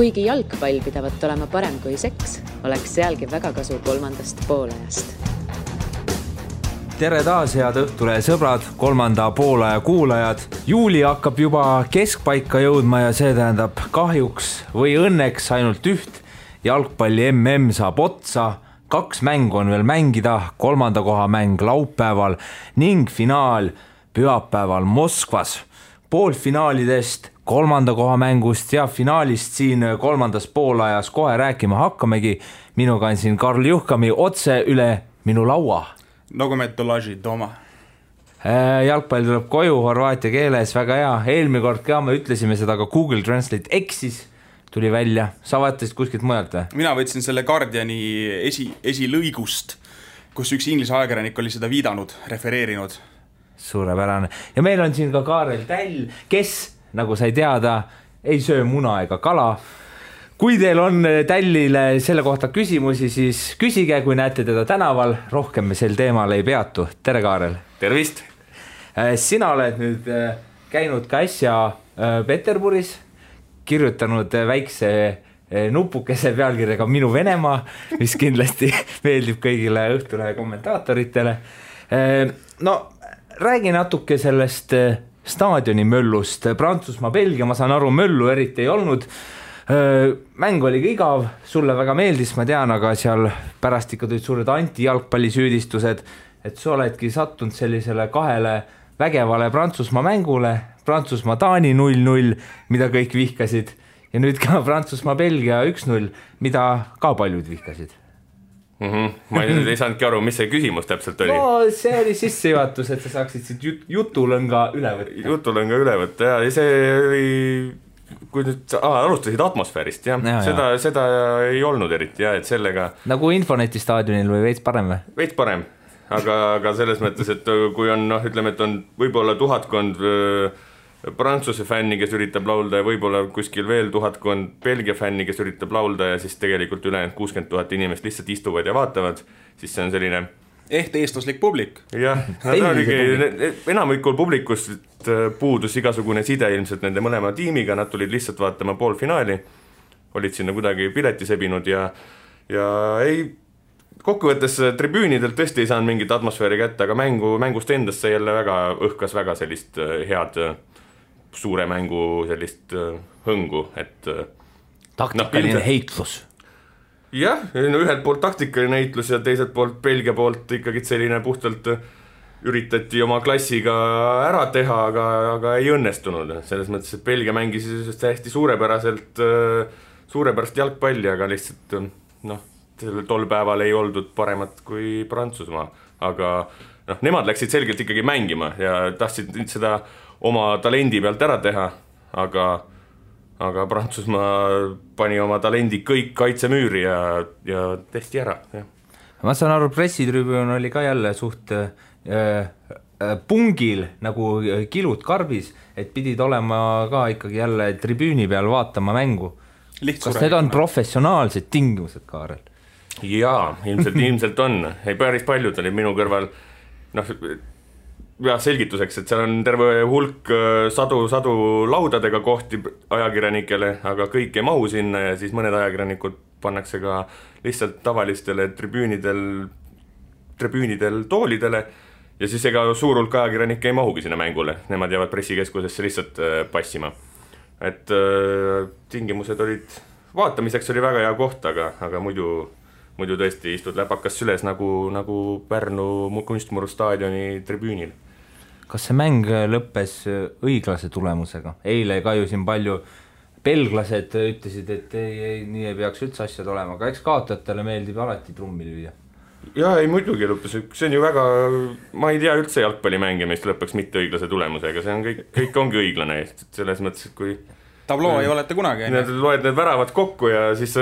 Kuigi jalgpall pidavat olema parem kui seks, oleks sealgi väga kasu kolmandast poolajast. Tere taas, head Õhtulehe sõbrad, kolmanda poolaja kuulajad. Juuli hakkab juba keskpaika jõudma ja see tähendab kahjuks või õnneks ainult üht. Jalgpalli MM saab otsa, 2 mängu on veel mängida, 3. koha mäng laupäeval ning finaal pühapäeval Moskvas. Poolfinaalidest, 3. koha mängust ja finaalist siin 3. poolajas kohe rääkima hakkamegi. Minuga on siin Karl Juhkami otse üle minu laua. Nagu me tolaži doma. Jalgpall tuleb koju horvaatia keeles, väga hea. Eelmine kord ka me ütlesime seda, aga Google Translate eksis, tuli välja. Sa vaatasid kuskilt mujalt või? Mina võtsin selle Guardiani esilõigust, kus üks inglise ajakirjanik oli seda viidanud, refereerinud. Suurepärane. Ja meil on siin ka Kaarel Täll, kes, nagu sai teada, ei söö muna ega kala. Kui teil on Tällile selle kohta küsimusi, siis küsige, kui näete teda tänaval. Rohkem me sel teemal ei peatu. Tere, Kaarel. Tervist. Sina oled nüüd käinud ka äsja Peterburis, kirjutanud väikse nupukese pealkirjaga Minu Venemaa, mis kindlasti meeldib kõigile Õhtulehe kommentaatoritele. No, räägi natuke sellest staadioni möllust. Prantsusmaa, Belgia, ma saan aru, möllu eriti ei olnud. Mäng oli igav, sulle väga meeldis, ma tean, aga seal pärast ikka tulid suured anti-jalgpallisüüdistused, et sa oledki sattunud sellisele 2 vägevale Prantsusmaa mängule, Prantsusmaa-Taani 0-0, mida kõik vihkasid, ja nüüd ka Prantsusmaa-Belgia 1-0, mida ka paljud vihkasid. Ma ei saanudki aru, mis see küsimus täpselt oli. No, see oli sissejuhatus, et sa saaksid siit jutulõnga üle võtta. Jutulõnga üle võtta, ja see oli... Kui nüüd alustasid atmosfäärist, seda ei olnud eriti, et sellega... Nagu Infoneti staadionil või veits parem või? Veits parem, aga selles mõttes, et kui on, ütleme, et on võib-olla 1000 Prantsuse fänni, kes üritab laulda ja võib-olla kuskil veel 1000 Belgia fänni, kes üritab laulda ja siis tegelikult ülejäänud 60 000 inimest lihtsalt istuvad ja vaatavad, siis see on selline... eestlaslik publik. Jah, enamikul publikust puudus igasugune side ilmselt nende mõlema tiimiga, nad tulid lihtsalt vaatama poolfinaali, olid sinna kuidagi pileti sebinud ja ei, kokkuvõttes tribüünidelt tõesti ei saanud mingit atmosfääri kätte, aga mängust endast see jälle õhkas väga sellist head suure mängu sellist hõngu, et taktikaline heitlus. Jah, ühelt poolt taktikaline heitlus ja teiselt poolt Belgia poolt ikkagi selline puhtalt üritati oma klassiga ära teha, aga ei õnnestunud. Selles mõttes, et Belgia mängis hästi suurepärast jalgpalli, aga lihtsalt tol päeval ei oldud paremat kui Prantsusmaa. Aga nemad läksid selgelt ikkagi mängima ja tahtsid seda oma talendi pealt ära teha, aga Prantsusmaa pani oma talendi kõik kaitsemüüri ja testi ära. Ja. Ma saan aru, pressitribüün oli ka jälle suht pungil nagu kilud karbis, et pidid olema ka ikkagi jälle tribüüni peal vaatama mängu. Kas need on professionaalsed tingimused, Kaarel? Jaa, ilmselt on. Ei, päris paljud oli minu kõrval selgituseks, et seal on terve hulk sadu laudadega kohti ajakirjanikele, aga kõik ei mahu sinna ja siis mõned ajakirjanikud pannakse ka lihtsalt tavalistele tribüünidel toolidele ja siis ega suur hulk ajakirjanikke ei mahugi sinna mängule. Nemad jäävad pressikeskusesse lihtsalt passima. Et tingimused olid, vaatamiseks oli väga hea koht, aga muidu tõesti istud läpakas süles nagu Pärnu Kunstmuru staadioni tribüünil. Kas see mäng lõppes õiglase tulemusega? Eile ka ju siin palju belglased ütlesid, et nii ei peaks üldse asjad olema, aga eks kaotajatele meeldib alati trummi lüüa. Jaa, ei muidugi lõppes, see on ju väga, ma ei tea üldse jalgpallimängimist lõppeks mitte õiglase tulemusega, see on kõik ongi õiglane, selles mõttes, et kui tabloo ei olete kunagi. Loed need väravad kokku ja siis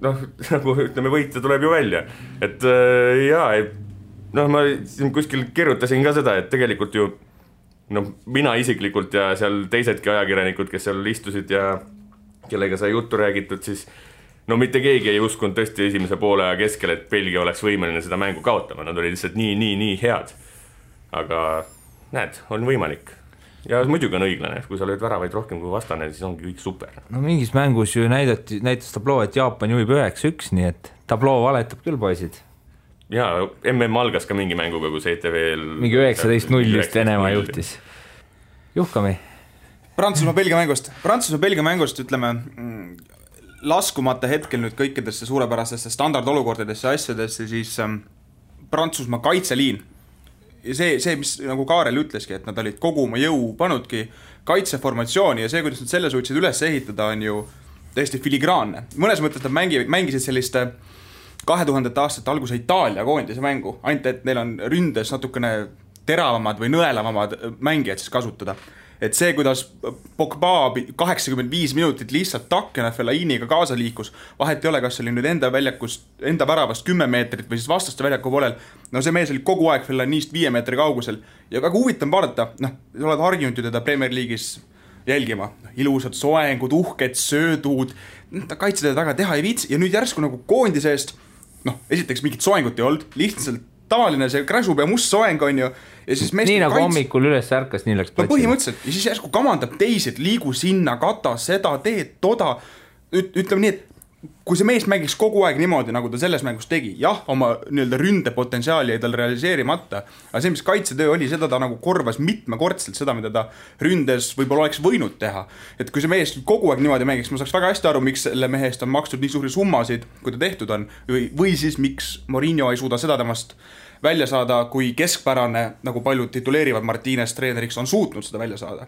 nagu ütleme, võitja tuleb ju välja. Et ma kuskil kirjutasin ka seda, et tegelikult ju mina isiklikult ja seal teisedki ajakirjanikud, kes seal istusid ja kellega sai juttu räägitud, siis mitte keegi ei uskunud tõesti esimese poole aja keskel, et Belgia oleks võimeline seda mängu kaotama. Nad olid lihtsalt nii head. Aga näed, on võimalik. ja muidugi on õiglane, kui sa lööd väravaid rohkem kui vastane, siis ongi kõik super. No mingis mängus ju näitas tabloo, et Jaapan juhib 9-1, nii et tabloo valetab küll, poisid. Jaa, MM algas ka mingi mänguga, kus ETV-l mingi 19-0 just Venemaa juhtis. Juhkami. Prantsusmaa-Belgia mängust ütleme, laskumata hetkel nüüd kõikidesse suurepärastesse standardolukordadesse asjadesse, siis Prantsusmaa kaitseliin ja see, mis nagu Kaarel ütleski, et nad olid kogu oma jõu panudki kaitseformatsiooni ja see, kuidas nad selle suutsid üles ehitada, on ju täiesti filigraanne. Mõnes mõttes nad mängisid selliste 2000. aastate alguse Itaalia koondise mängu, ainult et neil on ründes natukene teravamad või nõelavamad mängijad siis kasutada. Et see, kuidas Pogba 85 minutit lihtsalt takkena Fellainiga kaasa liikus, vahet ei ole, kas oli nüüd enda väravast 10 meetrit või siis vastaste väljaku poolel, no see mees oli kogu aeg Fellainist 5 meetri kaugusel ja väga huvitav vaadata, sa oled harjunud ju teda Premier League'is jälgima, ilusad soengud, uhked söödud, ta kaitsetada taga teha ei viitsi ja nüüd järsku nagu koondise eest, esiteks mingit soengut ei olnud, lihtsalt tavaline see kräsub ja must soeng on ju ja siis nii nagu hommikul üles ärkas, nii läks platsile. Põhimõtteliselt ja siis järsku kamandab teised, liigu sinna, kata seda, teed, toda ütleme nii, et kui see mees mängiks kogu aeg niimoodi, nagu ta selles mängus tegi, jah, oma nii-öelda ründepotentsiaali jäi tal realiseerimata, aga see, mis kaitsetöö oli, seda ta nagu korvas mitmekordselt seda, mida ta ründes võib-olla oleks võinud teha. Et kui see mees kogu aeg niimoodi mängiks, ma saaks väga hästi aru, miks selle mehest on makstud nii suuri summasid, kui ta tehtud on, või siis miks Mourinho ei suuda seda temast välja saada, kui keskpärane, nagu paljud tituleerivad Martínez treeneriks, on suutnud seda välja saada.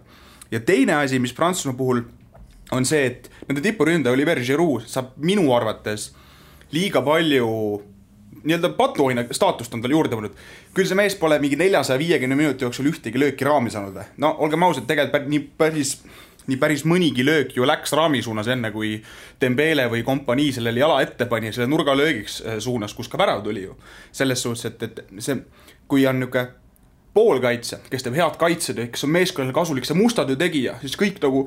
Ja teine asi, mis Prantsusmaa puhul on see, et nende tipuründe Olivier Giroud saab minu arvates liiga palju nii-öelda patuoina staatust on tal juurde võnud. Küll see mees pole mingi 450 minuti jooksul ühtegi lööki raami saanud. No olgem ausad, tegelikult nii päris mõnigi löök ju läks raami suunas enne, kui Dembele või kompanii sellele jala ette pani, selle nurgalöögiks suunas, kus ka värav tuli ju. Selles suhtes, et see, kui on niuke poolkaitse, kes teeb head kaitsetöö, kes on meeskonnale kasulik, see mustatöö tegija, siis kõik nagu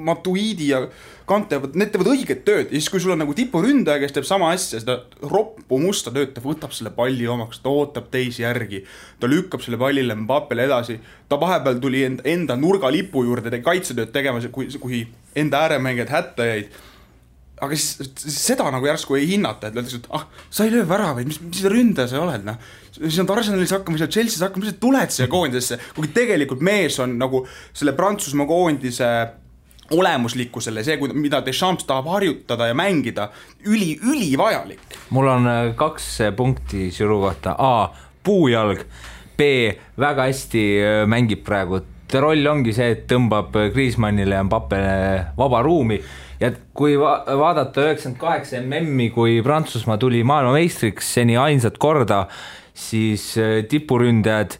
Matuidi ja Kante, need teevad õiget tööd ja siis kui sul on nagu tipuründaja, kes teeb sama asja, seda roppu musta tööd, ta võtab selle palli omaks, ta ootab teisi järgi, ta lükkab selle pallile Mbappele edasi, ta vahepeal tuli enda nurgalipu juurde kaitsetööd tegema, kui enda ääremängijad hätta jäid. Aga siis seda nagu järsku ei hinnata, et öeldakse, et sa ei löö väravaid, mis ründaja sa oled, siis on Arsenalis hakkama, Chelsea's hakkama, mis tuled siia koondisesse, kuigi tegelikult mees on nagu selle Prantsusmaa koondise olemuslikkusele, see, mida Deschamps tahab harjutada ja mängida, üli vajalik. Mul on 2 punkti Giroud kohta. A. Puujalg. B. Väga hästi mängib praegu. Roll ongi see, et tõmbab Griezmannile ja Mbappele vaba ruumi. Ja kui vaadata 98 MM-i, kui Prantsusmaa tuli maailmameistriks seni ainsat korda, siis tipuründajad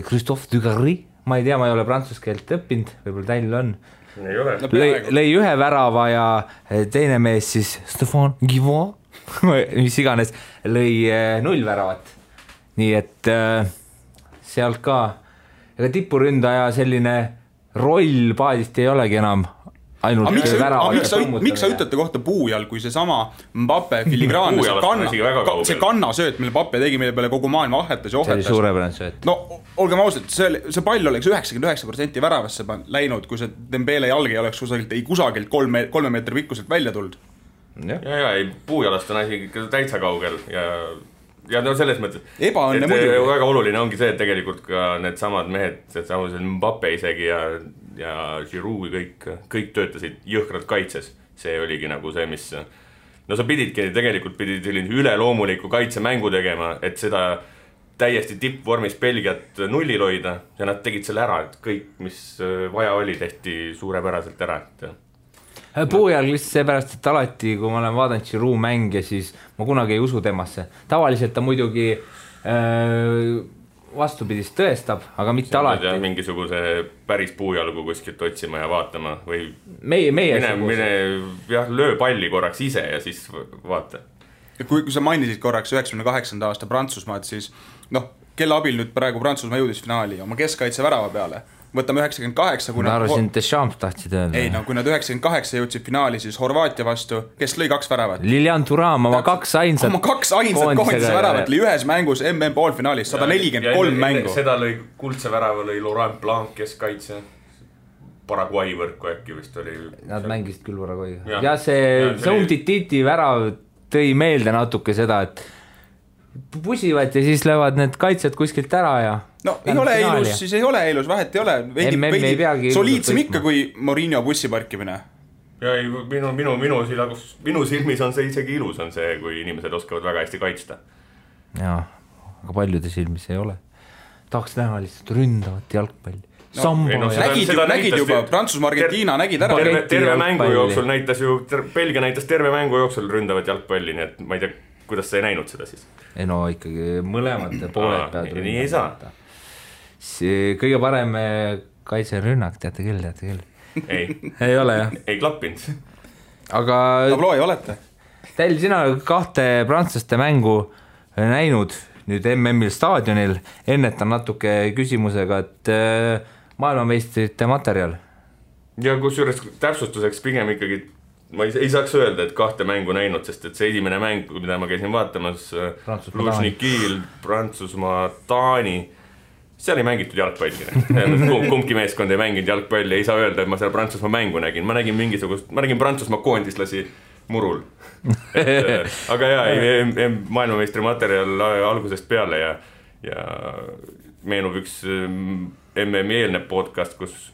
Christophe Dugarry, ma ei tea, ma ei ole prantsuskeelt õppinud, võib-olla teil on, lõi 1 värava ja teine mees siis Stéphane Guivon, mis iganes, lõi 0 väravat. Nii et sealt ka, ega tipuründaja selline roll paadist ei olegi enam ainult miks sa ütlete kohta Puujal, kui see sama Mbappe filigraanne, see kannasööt, mille Mbappe tegi, mille peale kogu maailma ahetas ja ohetas. See oli suurepärane sööt. No, olgem ausalt, see pall oleks 99% väravasse läinud, kui see Dembele jalg ei oleks kusagilt 3 meetri pikkuselt välja tulnud. Ja, Puujalast on asi täitsa kaugel ja no selles mõttes, et väga oluline ongi see, et tegelikult ka need samad mehed, Mbappe isegi ja Giroud kõik töötasid jõhkralt kaitses. See oligi nagu see, mis no sa pidid selline üleloomuliku kaitsemängu tegema, et seda täiesti tippvormis Belgiat nullil hoida ja nad tegid selle ära, et kõik, mis vaja oli, tehti suurepäraselt ära. Puujalg lihtsalt seepärast, et alati, kui ma olen vaadanud Giroud mänge, siis ma kunagi ei usu temasse. Tavaliselt ta muidugi vastupidist tõestab, aga mitte alati. Mingisuguse päris puujalgu kuskilt otsima ja vaatama või mine löö palli korraks ise ja siis vaata. Kui sa mainisid korraks 98. aasta Prantsusmaad, siis kelle abil nüüd praegu Prantsusmaa jõudis finaali oma keskkaitse värava peale. võtame 98, kui ma arvasin, et Deschamps tahtsid öelda. Ei, no kui nad 98 jõudsid finaali, siis Horvaatia vastu, kes lõi 2 väravat? Lilian Thuram, oma 2 ainsat koondise väravat lõi ühes mängus MM poolfinaalis, 143 mängu. Seda lõi kuldse värava, lõi Laurent Blanc, kes kaitse Paraguay võrku äkki vist oli. Nad mängisid küll Paraguayga. Ja see Umtiti värav tõi meelde natuke seda, et pusivad ja siis löövad need kaitsjad kuskilt ära ja no ei ole ilus, siis ei ole ilus, vahet ei ole veidi soliidsem ikka kui Mourinho bussiparkimine. Ja ei, minu silmis on see isegi ilus on see, kui inimesed oskavad väga hästi kaitsta. Jaa, aga paljude silmis ei ole. Tahaks näha lihtsalt ründavat jalgpalli. Nägid juba, Prantsusmaa, Argentiina nägid ära. Terve mängu jooksul näitas ju, Belgia näitas terve mängu jooksul ründavat jalgpalli, nii et ma ei tea, kuidas sa ei näinud seda siis? Ei no ikkagi mõlemad pooled peavad nii ei saa. Kõige parem kaitserünnak, teate küll. Ei ole jah. Ei klappinud. Aga Tabloo ei olete? Teil sina 2 prantslaste mängu näinud nüüd MM-il staadionil, ennetan natuke küsimusega, et maailmameistrite materjal. Ja kusjuures täpsustuseks pigem ikkagi ma ei saaks öelda, et 2 mängu näinud, sest et see esimene mäng, mida ma käisin vaatamas, Luzhnikil, Prantsusmaa, Taani, seal ei mängitud jalgpalli. Kumbki meeskond ei mänginud jalgpalli, ei saa öelda, et ma seal Prantsusmaa mängu nägin. Ma nägin Prantsusmaa koondislasi murul. Aga jaa, maailmameistri materjal algusest peale ja meenub üks MM-i eelne podcast, kus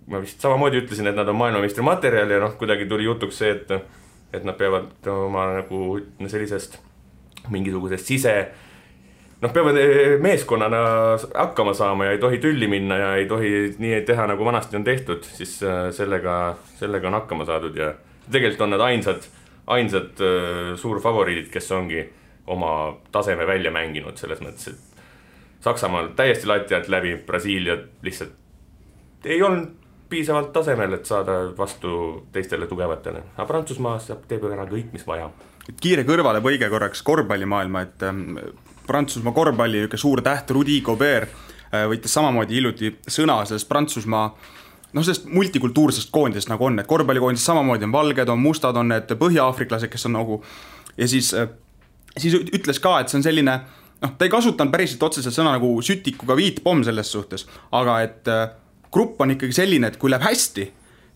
ma vist samamoodi ütlesin, et nad on maailmameistri materjal ja kuidagi tuli jutuks see, et nad peavad oma nagu sellisest mingisugusest peavad meeskonnana hakkama saama ja ei tohi tülli minna ja ei tohi nii teha, nagu vanasti on tehtud, siis sellega on hakkama saadud ja tegelikult on nad ainsad suurfavoriidid, kes ongi oma taseme välja mänginud selles mõttes, et Saksamaal täiesti lati alt läbi, Brasiilia lihtsalt ei olnud piisavalt tasemel, et saada vastu teistele tugevatele. Aga Prantsusmaa teeb ära kõik, mis vaja. Kiire kõrvale põige korraks korvpallimaailma, et Prantsusmaa korvpalli suur täht Rudy Gobert võitis samamoodi hiljuti sõna sellest Prantsusmaa sellest multikultuursest koondisest nagu on, et korvpallikoondis samamoodi on valged, on mustad, on need põhja-afriklased, kes on nagu ja siis ütles ka, et see on selline ta ei kasutanud päriselt otseselt sõna nagu sütikuga viitpomm selles suhtes, aga et grupp on ikkagi selline, et kui läheb hästi,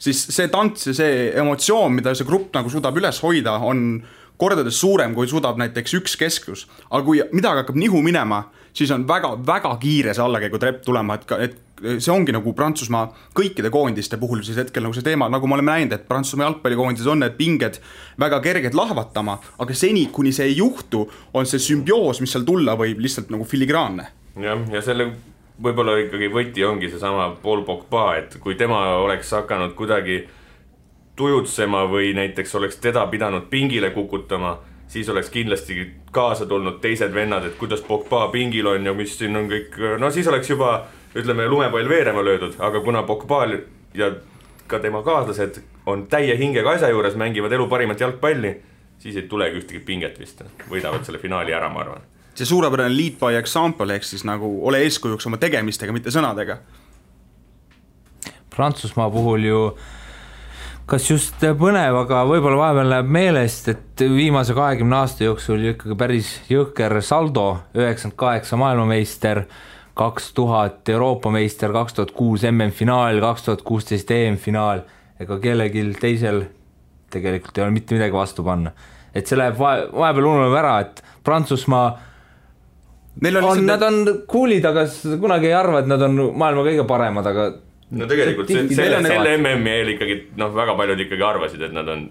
siis see tants ja see emotsioon, mida see grupp nagu suudab üles hoida, on kordades suurem, kui suudab näiteks üks keskus. Aga kui midagi hakkab nihu minema, siis on väga kiire see allakäigu trepp tulema, et see ongi nagu Prantsusmaa kõikide koondiste puhul siis hetkel nagu see teema, nagu me oleme näinud, et Prantsusmaa jalgpallikoondis on need pinged väga kerged lahvatama, aga seni, kuni see ei juhtu, on see sümbioos, mis seal tulla võib lihtsalt nagu filigraanne. Ja selle võib-olla ikkagi võti ongi see sama Paul Pogba, et kui tema oleks hakanud kuidagi tujutsema või näiteks oleks teda pidanud pingile kukutama, siis oleks kindlasti kaasa tulnud teised vennad, et kuidas Pogba pingil on ja mis siin on kõik, siis oleks juba, ütleme, lumepall veerema löödud, aga kuna Pogba ja ka tema kaaslased on täie hingega asja juures, mängivad elu parimat jalgpalli, siis ei tulegi ühtegi pinget vist, võidavad selle finaali ära, ma arvan. See suurepärane lead by example, ehk siis nagu ole eeskujuks oma tegemistega, mitte sõnadega. Prantsusmaa puhul ju kas just põnev, aga võib-olla vahepeal läheb meelest, et viimase 20 aasta jooksul ikkagi päris jõhker saldo, 98 maailmameister, 2000 Euroopa meister, 2006 MM-finaal, 2016 EM-finaal, ega kellegil teisel tegelikult ei ole mitte midagi vastu panna. Et see läheb vahepeal ununeb ära, et Prantsusmaa nad on kuulid, aga kunagi ei arva, et nad on maailma kõige paremad, aga no tegelikult selle MM-i eel ikkagi väga paljud ikkagi arvasid, et nad on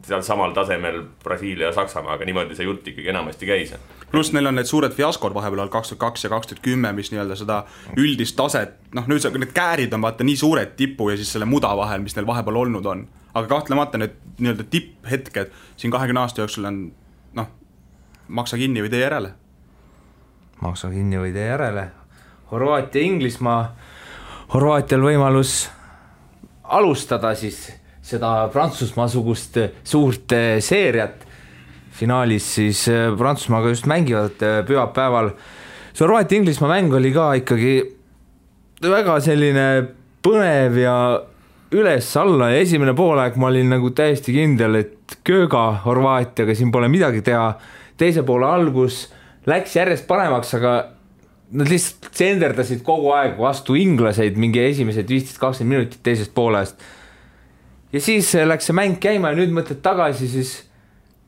seal samal tasemel Brasiilia ja Saksamaa, aga niimoodi see jutt ikkagi enamasti käis. Plus neil on need suured fiaskod vahepeal 2002 ja 2010, mis nii-öelda seda üldist taset, nüüd need käärid on vaata nii suured tipu ja siis selle muda vahel, mis neil vahepeal olnud on. Aga kahtlemata need nii-öelda tipphetked siin 20 aasta jooksul on maksa kinni või tee järele. Maksa kinni või tee järele. Horvaatia, Inglismaa. Horvaatial võimalus alustada siis seda Prantsusmaa-sugust suurt seeriat. Finaalis siis Prantsusmaaga just mängivad pühapäeval. See Horvaatia-Inglismaa mäng oli ka ikkagi väga selline põnev ja üles-alla ja esimene poolaeg ma olin nagu täiesti kindel, et kööga Horvaatiaga siin pole midagi teha. Teise poole algus läks järjest paremaks, aga nad lihtsalt senderdasid kogu aeg vastu inglaseid mingi esimesed 15-20 minutit teisest poolest. Ja siis läks see mäng käima ja nüüd mõtled tagasi, siis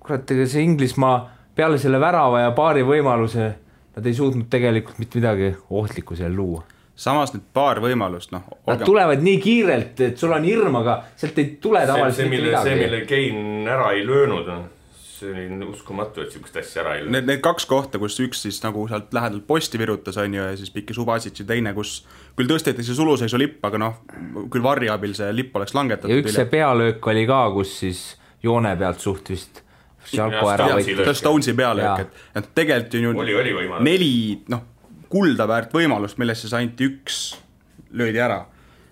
kurat, ega see Inglismaa peale selle värava ja paari võimaluse nad ei suutnud tegelikult mitte midagi ohtlikku seal luua. Samas nüüd paar võimalust, noh. Nad tulevad nii kiirelt, et sul on hirm, aga sealt ei tule tavaliselt mitte midagi. See, mille Kane ära ei löönud, see oli uskumatu, et sihukest asja ära ei löönud. Need kaks kohta, kus üks siis nagu sealt lähedalt posti virutas on ju, ja siis pikki Subasic ja teine, kus küll tõsteti see suluseisu lipp, aga noh, küll varri abil see lipp oleks langetatud. Ja üks see pealöök oli ka, kus siis joone pealt suht vist Šalko ära võitis. Stonesi pealöök, et tegelikult ju oli 4 kulda väärt võimalust, millest siis ainult üks löödi ära.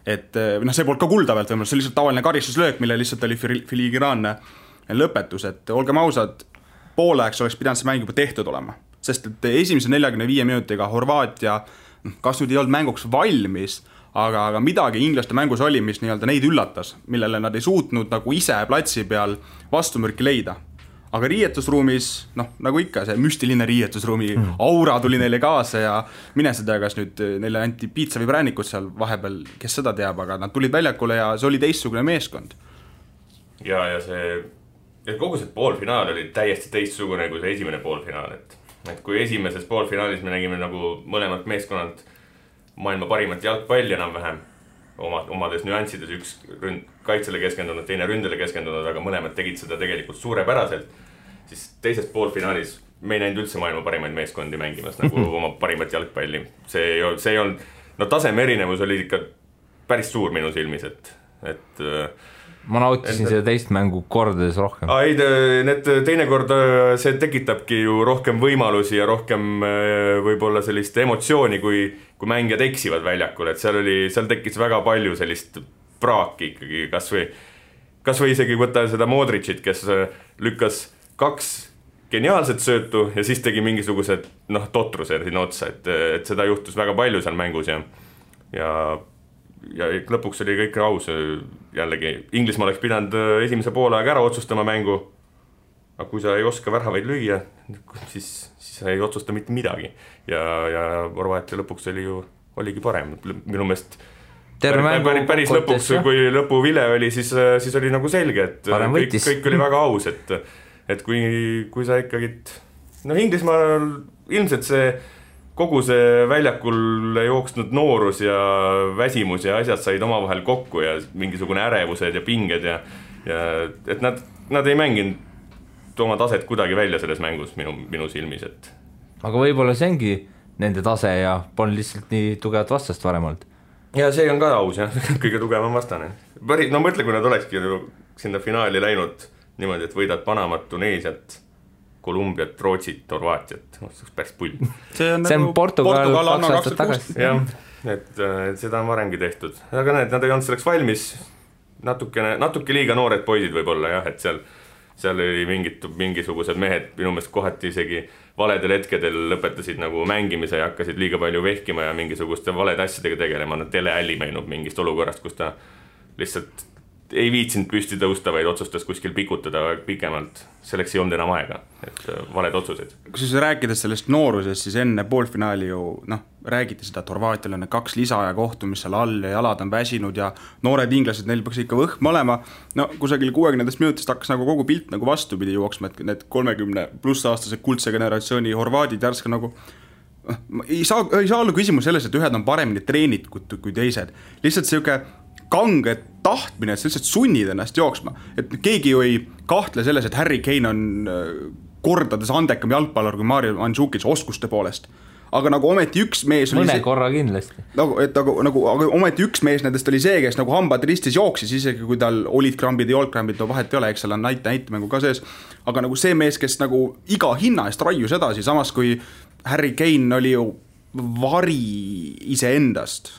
Et see polnud ka kulda väärt võimalust, see oli lihtsalt tavaline karistuslöök, mille lihtsalt oli filigraanne lõpetus, et olgem ausad, pooleks oleks pidanud see mäng juba tehtud olema, sest et esimese 45 minutiga Horvaatia kas nüüd ei olnud mänguks valmis, aga midagi inglaste mängus oli, mis nii-öelda neid üllatas, millele nad ei suutnud nagu ise platsi peal vastumürki leida. Aga riietusruumis, nagu ikka, see müstiline riietusruumi aura tuli neile kaasa ja mine seda, kas nüüd neile anti piitsa või präänikud seal vahepeal, kes seda teab, aga nad tulid väljakule ja see oli teistsugune meeskond. Ja kogu see poolfinaal oli täiesti teistsugune kui see esimene poolfinaal, et kui esimeses poolfinaalis me nägime nagu mõlemad meeskonnad maailma parimat jalgpalli enam-vähem, omades nüanssides, üks kaitsele keskendunud, teine ründele keskendunud, aga mõlemad tegid seda tegelikult suurepäraselt, siis teises poolfinaalis me ei näinud üldse maailma parimaid meeskondi mängimas nagu oma parimat jalgpalli. See ei olnud, taseme erinevus oli ikka päris suur minu silmis, et ma nautisin seda teist mängu kordades rohkem. Need teinekord see tekitabki ju rohkem võimalusi ja rohkem võib-olla sellist emotsiooni, kui mängijad eksivad väljakul, et seal tekkis väga palju sellist praaki ikkagi, kas või isegi võtta seda Modricit, kes lükkas 2 geniaalset söötu ja siis tegi mingisugused totruse sinna otsa, et seda juhtus väga palju seal mängus ja lõpuks oli kõik aus jällegi. Inglismaa oleks pidanud esimese poolaeg ära otsustama mängu, aga kui sa ei oska väravaid lüüa, siis sa ei otsusta mitte midagi ja Horvaatia lõpuks oligi parem minu meelest päris lõpuks, kui lõpuvile oli, siis oli nagu selge, et kõik oli väga aus, et kui sa ikkagi Inglismaal ilmselt kogu see väljakul jooksnud noorus ja väsimus ja asjad said omavahel kokku ja mingisugune ärevused ja pinged ja et nad ei mänginud oma taset kuidagi välja selles mängus minu silmis, et. Aga võib-olla see ongi nende tase ja polnud lihtsalt nii tugevat vastast varem olnud. Ja see on ka aus, kõige tugevam vastane. Mõtle, kui nad olekski sinna finaali läinud niimoodi, et võidad Panamat, Tuneesiat, Kolumbiat, Rootsit, Horvaatiat, see oleks päris pull. See on Portugal 2 aastat tagasi. Jah, et seda on varemgi tehtud. Aga nad ei olnud selleks valmis, natuke liiga noored poisid võib-olla, jah, et seal oli mingisugused mehed minu meelest kohati isegi valedel hetkedel lõpetasid nagu mängimise ja hakkasid liiga palju vehkima ja mingisuguste valede asjadega tegelema. Teleälli meenub mingist olukorrast, kus ta lihtsalt ei viitsinud püsti tõusta, vaid otsustas kuskil pikutada pikemalt. Selleks ei olnud enam aega, et valed otsused. Kui siis rääkides sellest noorusest, siis enne poolfinaali ju räägiti seda, et Horvaatial on 2 lisaaja kohtumist seal all ja jalad on väsinud ja noored inglased, neil peaks ikka võhm olema. Kusagil 60 minutist hakkas nagu kogu pilt nagu vastupidi jooksma, et need 30 pluss aastased kuldse generatsiooni horvaadid järska nagu ei saa olla küsimus selles, et ühed on paremini treenitud kui teised. Lihtsalt selline kange tahtmine, et sa lihtsalt sunnid ennast jooksma. Et keegi ju ei kahtle selles, et Harry Kane on kordades andekam jalgpallur kui Mario Mandžukic oskuste poolest. Aga nagu ometi üks mees mõne korra kindlasti. Aga ometi üks mees nendest oli see, kes nagu hambad ristis jooksis, isegi kui tal olid krambid ja olkrambid, vahet ei ole, eks seal on näitemängu ka sees. Aga nagu see mees, kes nagu iga hinna eest raius edasi, samas kui Harry Kane oli ju vari iseendast.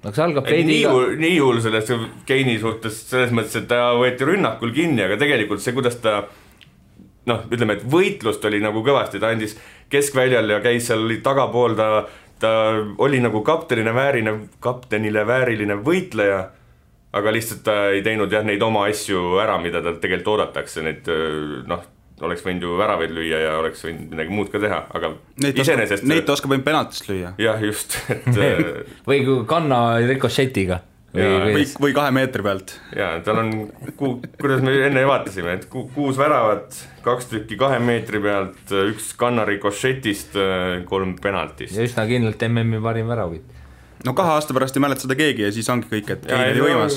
Nii hull sellest Keini suhtes selles mõttes, et ta võeti rünnakul kinni, aga tegelikult see, kuidas ta ütleme, et võitlust oli nagu kõvasti, ta andis keskväljal ja käis seal tagapool, ta ta oli nagu kaptenile vääriline võitleja, aga lihtsalt ta ei teinud neid oma asju ära, mida ta tegelikult oodatakse, neid oleks võinud ju väravaid lüüa ja oleks võinud midagi muud ka teha, aga iseenesest... Neid ta oskab võin penaltist lüüa. Jah, just. või kanna rikošetiga. Või 2 meetri pealt. Ja, tal on, kuidas me enne vaatasime, et 6 väravat, 2 tükki 2 meetri pealt, 1 kannari košetist, 3 penaltist. Ja üsna kindlalt MM-i parim väravit. No 2 aasta pärast ei mäleta seda keegi ja siis ongi kõik, et keegi oli võimas.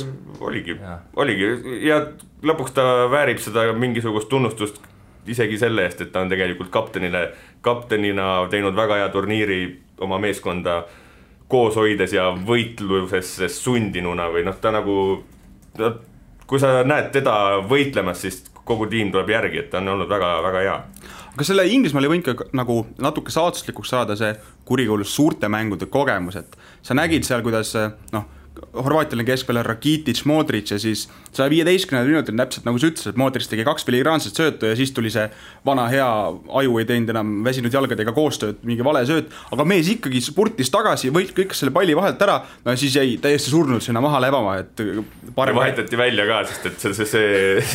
Oligi. Ja lõpuks ta väärib seda mingisugust tunnustust isegi selle eest, et ta on tegelikult kaptenina teinud väga hea turniiri oma meeskonda koos hoides ja võitluses sundinuna või ta nagu, kui sa näed teda võitlemas, siis kogu tiim tuleb järgi, et ta on olnud väga, väga hea. Aga selle Inglismaal ei võinud ka nagu natuke saatuslikuks saada see kurikuulus suurte mängude kogemus, et sa nägid seal, kuidas Horvaatial on keskpeal Rakitic, Modric ja siis 115 minutil täpselt nagu sa ütlesid, et Modric tegi 2 filigraanset söötu ja siis tuli see vana hea aju ei teinud enam väsinud jalgadega koostööd, mingi vale sööt, aga mees ikkagi spurtis tagasi, võit kõik selle palli vahelt ära, no siis jäi täiesti surnud sinna maha lebama, et parem... Vahetati välja ka, sest et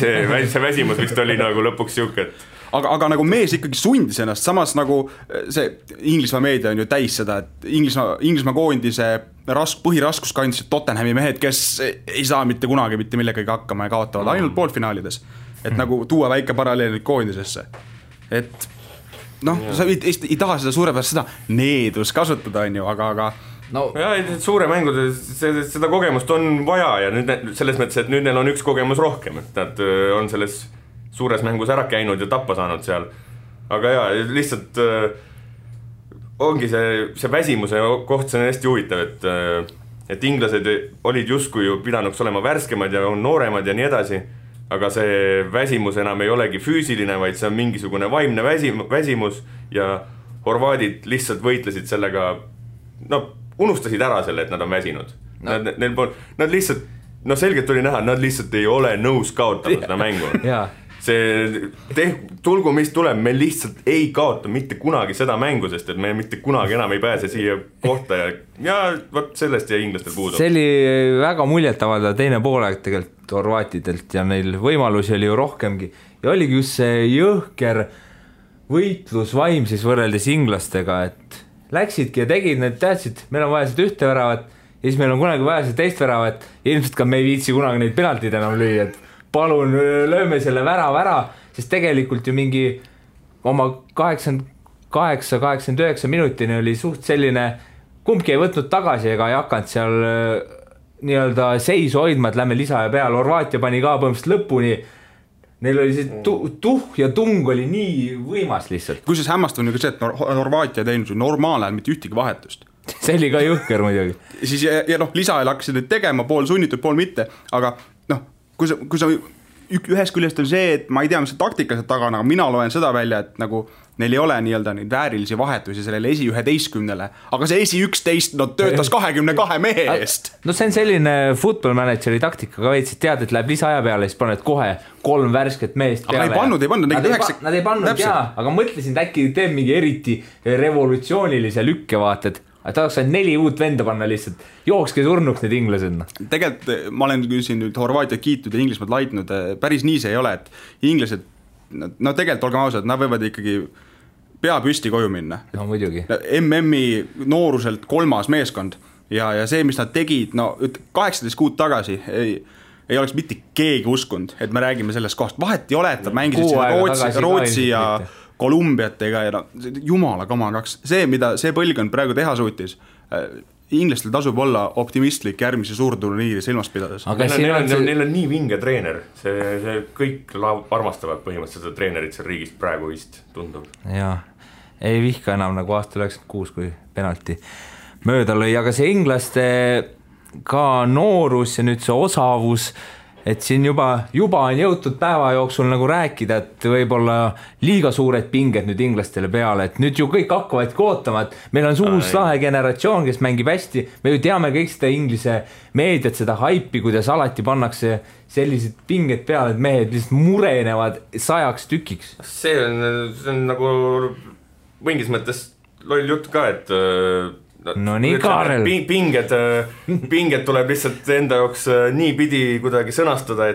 see väsimus vist oli nagu lõpuks siuke, et aga nagu mees ikkagi sundis ennast, samas nagu see Inglismaa meedia on ju täis seda, et Inglismaa koondise põhiraskus kandsid Tottenhami mehed, kes ei saa mitte kunagi mitte millegagi hakkama ja kaotavad ainult poolfinaalides. Et nagu tuua väike paralleel koondisesse. Et sa ei taha seda suurepärast seda needus kasutada, on ju, aga no. Ja, suure mängude seda kogemust on vaja ja nüüd selles mõttes, et nüüd neil on üks kogemus rohkem, et nad on selles suures mängus ära käinud ja tappa saanud seal. Aga jaa, lihtsalt ongi see väsimuse koht, see on hästi huvitav, et inglased olid justkui ju pidanuks olema värskemad ja on nooremad ja nii edasi, aga see väsimus enam ei olegi füüsiline, vaid see on mingisugune vaimne väsimus ja horvaadid lihtsalt võitlesid sellega, unustasid ära selle, et nad on väsinud. Nad lihtsalt, selgelt oli näha, nad lihtsalt ei ole nõus kaotama seda mängu. Tulgu mis tuleb, me lihtsalt ei kaota mitte kunagi seda mängu, sest et me mitte kunagi enam ei pääse siia kohta ja võt sellest ja inglastel puudu. See oli väga muljetavada teine poolaeg tegelikult horvaatidelt ja neil võimalusi oli ju rohkemgi ja oligi just see jõhker võitlusvaim siis võrreldes inglastega, et läksidki ja tegid, need teadsid, meil on vaja seda ühte väravat ja siis meil on kunagi vaja seda teist väravat ja ilmselt ka me ei viitsi kunagi neid penaltid enam lüüa, et palun lööme selle värava ära, sest tegelikult ju mingi oma 88-89 minutini oli suht selline, kumbki ei võtnud tagasi ega ei hakanud seal nii-öelda seisu hoidma, et lähme lisa ja peale, Horvaatia pani ka põhimõtteliselt lõpuni, neil oli see tuhh ja tung oli nii võimas lihtsalt. Kusjuures hämmastav on ju ka see, et Horvaatia teinud normaalajal mitte ühtegi vahetust. See oli ka jõhker muidugi. Siis ja lisaajal hakkasid nüüd tegema, pool sunnitud, pool mitte, aga kui sa ühes küljest on see, et ma ei tea, mis see taktika seal taga, aga mina loen seda välja, et nagu neil ei ole nii-öelda neid väärilisi vahetusi sellele esi 11-le, aga see esi 11 töötas 22 mehe eest. No see on selline football manageri taktika ka veits, et tead, et läheb lisaaja peale, siis paned kohe 3 värsket meest peale. Aga ei pannud. Nad ei pannud jaa, aga mõtlesin, et äkki teeb mingi eriti revolutsioonilise lükkevaated. Et tahaks 4 uut venda panna lihtsalt, jookske surnuks need inglased. Tegelikult ma olen siin nüüd Horvaatiat kiitud ja Inglismaad laitnud, päris nii see ei ole, et inglased, tegelikult olgem ausad, nad võivad ikkagi pea püsti koju minna. No muidugi. MM-i nooruselt 3. meeskond ja see, mis nad tegid, 18 kuud tagasi ei oleks mitte keegi uskunud, et me räägime sellest kohast. Vahet ei ole, et nad mängisid Rootsi ja Kolumbiatega ja jumala kamagaks. See, mida see põlgkond praegu teha suutis, inglastel tasub olla optimistlik järgmise suurturniiri silmas pidades. Neil on nii vinge treener, see kõik armastavad põhimõtteliselt seda treenerit seal riigist praegu vist tundub. Jaa, ei vihka enam nagu aasta 96, kui penalti mööda lõi, aga see inglaste ka noorus ja nüüd see osavus, et siin juba on jõutud päeva jooksul nagu rääkida, et võib-olla liiga suured pinged nüüd inglastele peale, et nüüd ju kõik hakkavad ootama, et meil on uus lahe generatsioon, kes mängib hästi, me ju teame kõik seda inglise meediat, seda haipi, kuidas alati pannakse sellised pinged peale, et mehed lihtsalt murenevad 100 tükiks. See on nagu mingis mõttes loll jutt ka, et No nii, Kaarel. Pinged tuleb lihtsalt enda jaoks nii pidi kuidagi sõnastada,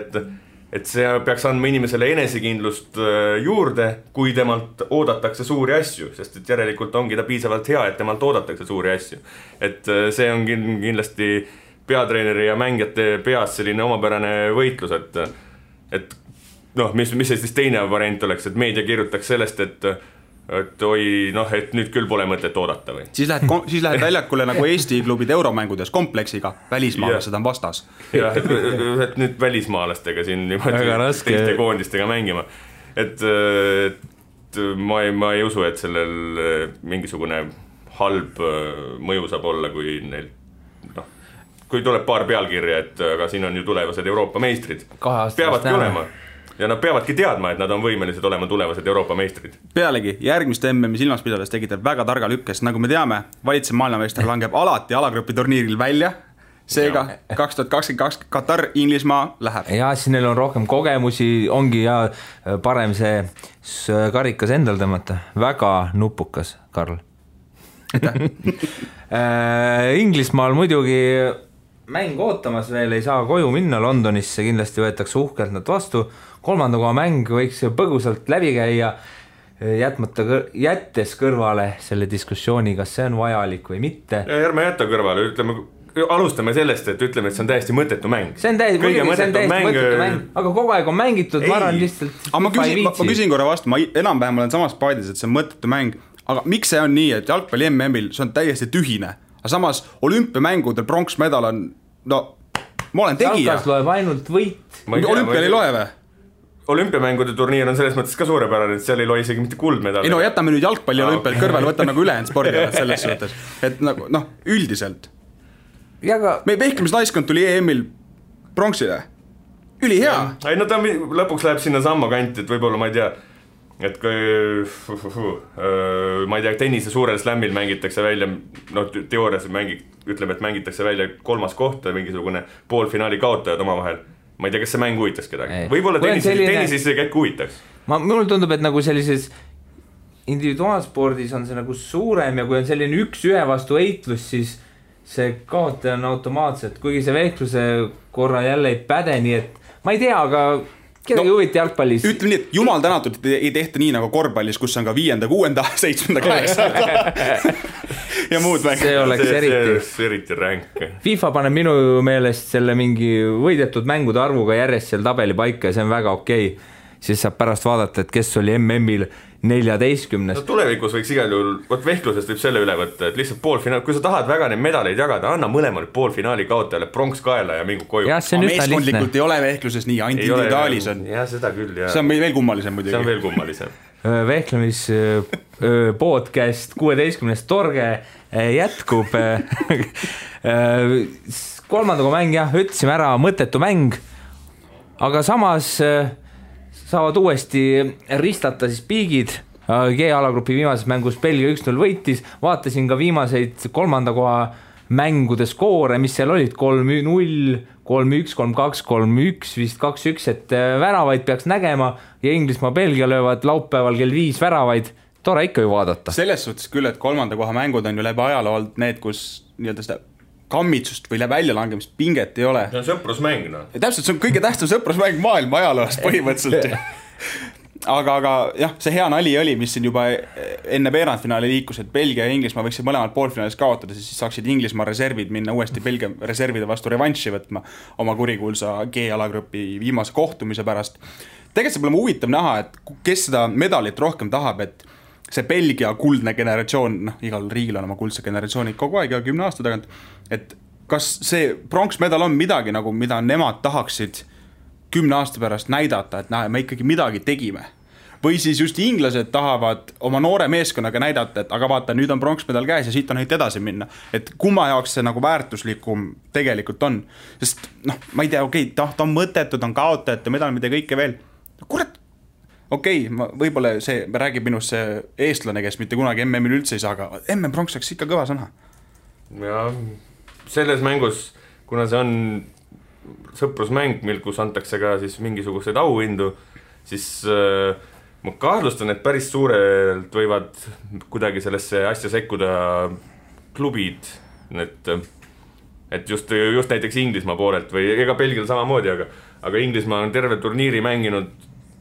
et see peaks andma inimesele enesekindlust juurde, kui temalt oodatakse suuri asju, sest et järelikult ongi ta piisavalt hea, et temalt oodatakse suuri asju. Et see on kindlasti peatreeneri ja mängijate peas selline omapärane võitlus, et noh, mis siis teine variant oleks, et meedia kirjutaks sellest, et nüüd küll pole mõtet oodata või? Siis lähed väljakule nagu Eesti klubid euromängudes kompleksiga, välismaalased on vastas. Jah, et nüüd välismaalastega siin teiste koondistega mängima. Et ma ei usu, et sellel mingisugune halb mõju saab olla, kui neil kui tuleb paar pealkirja, et aga siin on ju tulevased Euroopa meistrid. Peavadki olema. Ja nad peavadki teadma, et nad on võimelised olema tulevased Euroopa meistrid. Pealegi, järgmist MM-i silmas pidades tegite väga targa lükkes. Nagu me teame, valitsev maailmameister langeb alati alagrupi turniiril välja. Seega 2022 Katar, Inglismaa läheb. Ja siis neil on rohkem kogemusi, ongi ja parem see karikas endal tõmmata. Väga nupukas, Karl. Inglismaal muidugi mäng ootamas veel, ei saa koju minna Londonisse, kindlasti võetakse uhkelt nad vastu. Kolmanda koha mäng võiks põgusalt läbi käia, jättes kõrvale selle diskussiooni, kas see on vajalik või mitte. Ja ärme jätta kõrvale, alustame sellest, et ütleme, et see on täiesti mõttetu mäng. See on täiesti mõttetu mäng, aga kogu aeg on mängitud, ma arvan lihtsalt. Ma küsin korra vastu, ma enam-vähem olen samas paadis, et see on mõttetu mäng, aga miks see on nii, et jalgpalli MM-il see on täiesti tühine, aga samas olümpiamängudel pronksmedal on, ma olen tegija. Jalkas loeb ainult võit. Olümpial ei loe või? Olümpiamängude turniir on selles mõttes ka suurepärane, et seal ei loe isegi mitte kuldmedal. Ei no jätame nüüd jalgpalli olümpial kõrval, võtame nagu ülejäänud spordialad selles suhtes. Et nagu, üldiselt. Meie vehklemisnaiskond tuli EM-il pronksile. Ülihea. Ei no ta lõpuks läheb sinna samma kanti, et võib-olla ma ei tea, et ma ei tea, tennise suurel slämmil mängitakse välja, teoorias ütleme, et mängitakse välja 3. koht, mingisugune poolfinaali kaotajad omavahel. Ma ei tea, kas see mäng huvitaks kedagi. Võib-olla tennisis see käik huvitaks. Mul tundub, et nagu sellises individuaalspordis on see nagu suurem ja kui on selline 1-1 vastu heitlus, siis see kaotaja on automaatselt, kuigi see vehkluse korra jälle ei päde, nii et ma ei tea, aga kedagi huviti jalgpallis. Ütleme nii, et jumal tänatud ei tehta nii nagu korvpallis, kus on ka 5., 6., 7., 8. ja muud mäng. See oleks eriti ränk. FIFA paneb minu meelest selle mingi võidetud mängude arvuga järjest seal tabeli paika ja see on väga okei. Siis saab pärast vaadata, et kes oli MM-il 14. No, tulevikus võiks igal juhul, vehklusest võib selle üle võtta, et lihtsalt poolfinaal, kui sa tahad väga neid medaleid jagada, anna mõlemale poolfinaali kaotajale pronks kaela ja mingu koju. Meeskondlikult ei ole vehkluses nii, ainult individuaalis on. Ja seda küll, jah. See on veel kummalisem muidugi. See on veel kummalisem. Vehklemis podcast 16. torge jätkub. Kolmandaga mäng, jah, ütlesime ära, mõttetu mäng, aga samas saavad uuesti ristata siis piigid. G-alagrupi viimases mängus Belgia 1-0 võitis, vaatasin ka viimaseid kolmanda koha mängude skoore, mis seal olid 3-0, 3-1, 3-2, 3-1, vist 2-1, et väravaid peaks nägema ja Inglismaa Belgia löövad laupäeval kell 5 väravaid, tore ikka ju vaadata. Selles suhtes küll, et kolmanda koha mängud on ju läbi ajaloo olnud need, kus nii-öelda seda kammitsust või väljalangemist pinget ei ole. See on sõprusmäng, no. Ja täpselt, see on kõige tähtsam sõprusmäng maailma ajaloost põhimõtteliselt. aga jah, see hea nali oli, mis siin juba enne veerandfinaali liikus, et Belgia ja Inglismaa võiksid mõlemad poolfinaalis kaotada, siis saaksid Inglismaa reservid minna uuesti Belgia reservide vastu revanši võtma oma kurikuulsa G-alagrupi viimase kohtumise pärast. Tegelikult see pole huvitav näha, et kes seda medalit rohkem tahab, et see Belgia kuldne generatsioon, igal riigil on oma kuldse generatsioonid kogu aeg ja 10 aasta tagant, et kas see pronksmedal on midagi, nagu mida nemad tahaksid 10 aasta pärast näidata, et me ikkagi midagi tegime. Või siis just inglased tahavad oma noore meeskonnaga näidata, et aga vaata, nüüd on pronksmedal käes ja siit on heit edasi minna. Et kumma jaoks see nagu väärtuslikum tegelikult on. Sest ma ei tea, ta on mõttetud, on kaotajate medal, mida kõike veel. Kurat, võib-olla see räägib minust see eestlane, kes mitte kunagi MM-il üldse ei saa, aga MM-pronks oleks ikka kõva sõna. Ja selles mängus, kuna see on sõprusmäng, kus antakse ka siis mingisuguseid auhindu, siis ma kahtlustan, et päris suurelt võivad kuidagi sellesse asja sekkuda klubid, et just näiteks Inglismaa poolelt või ega Belgial samamoodi, aga Inglismaa on terve turniiri mänginud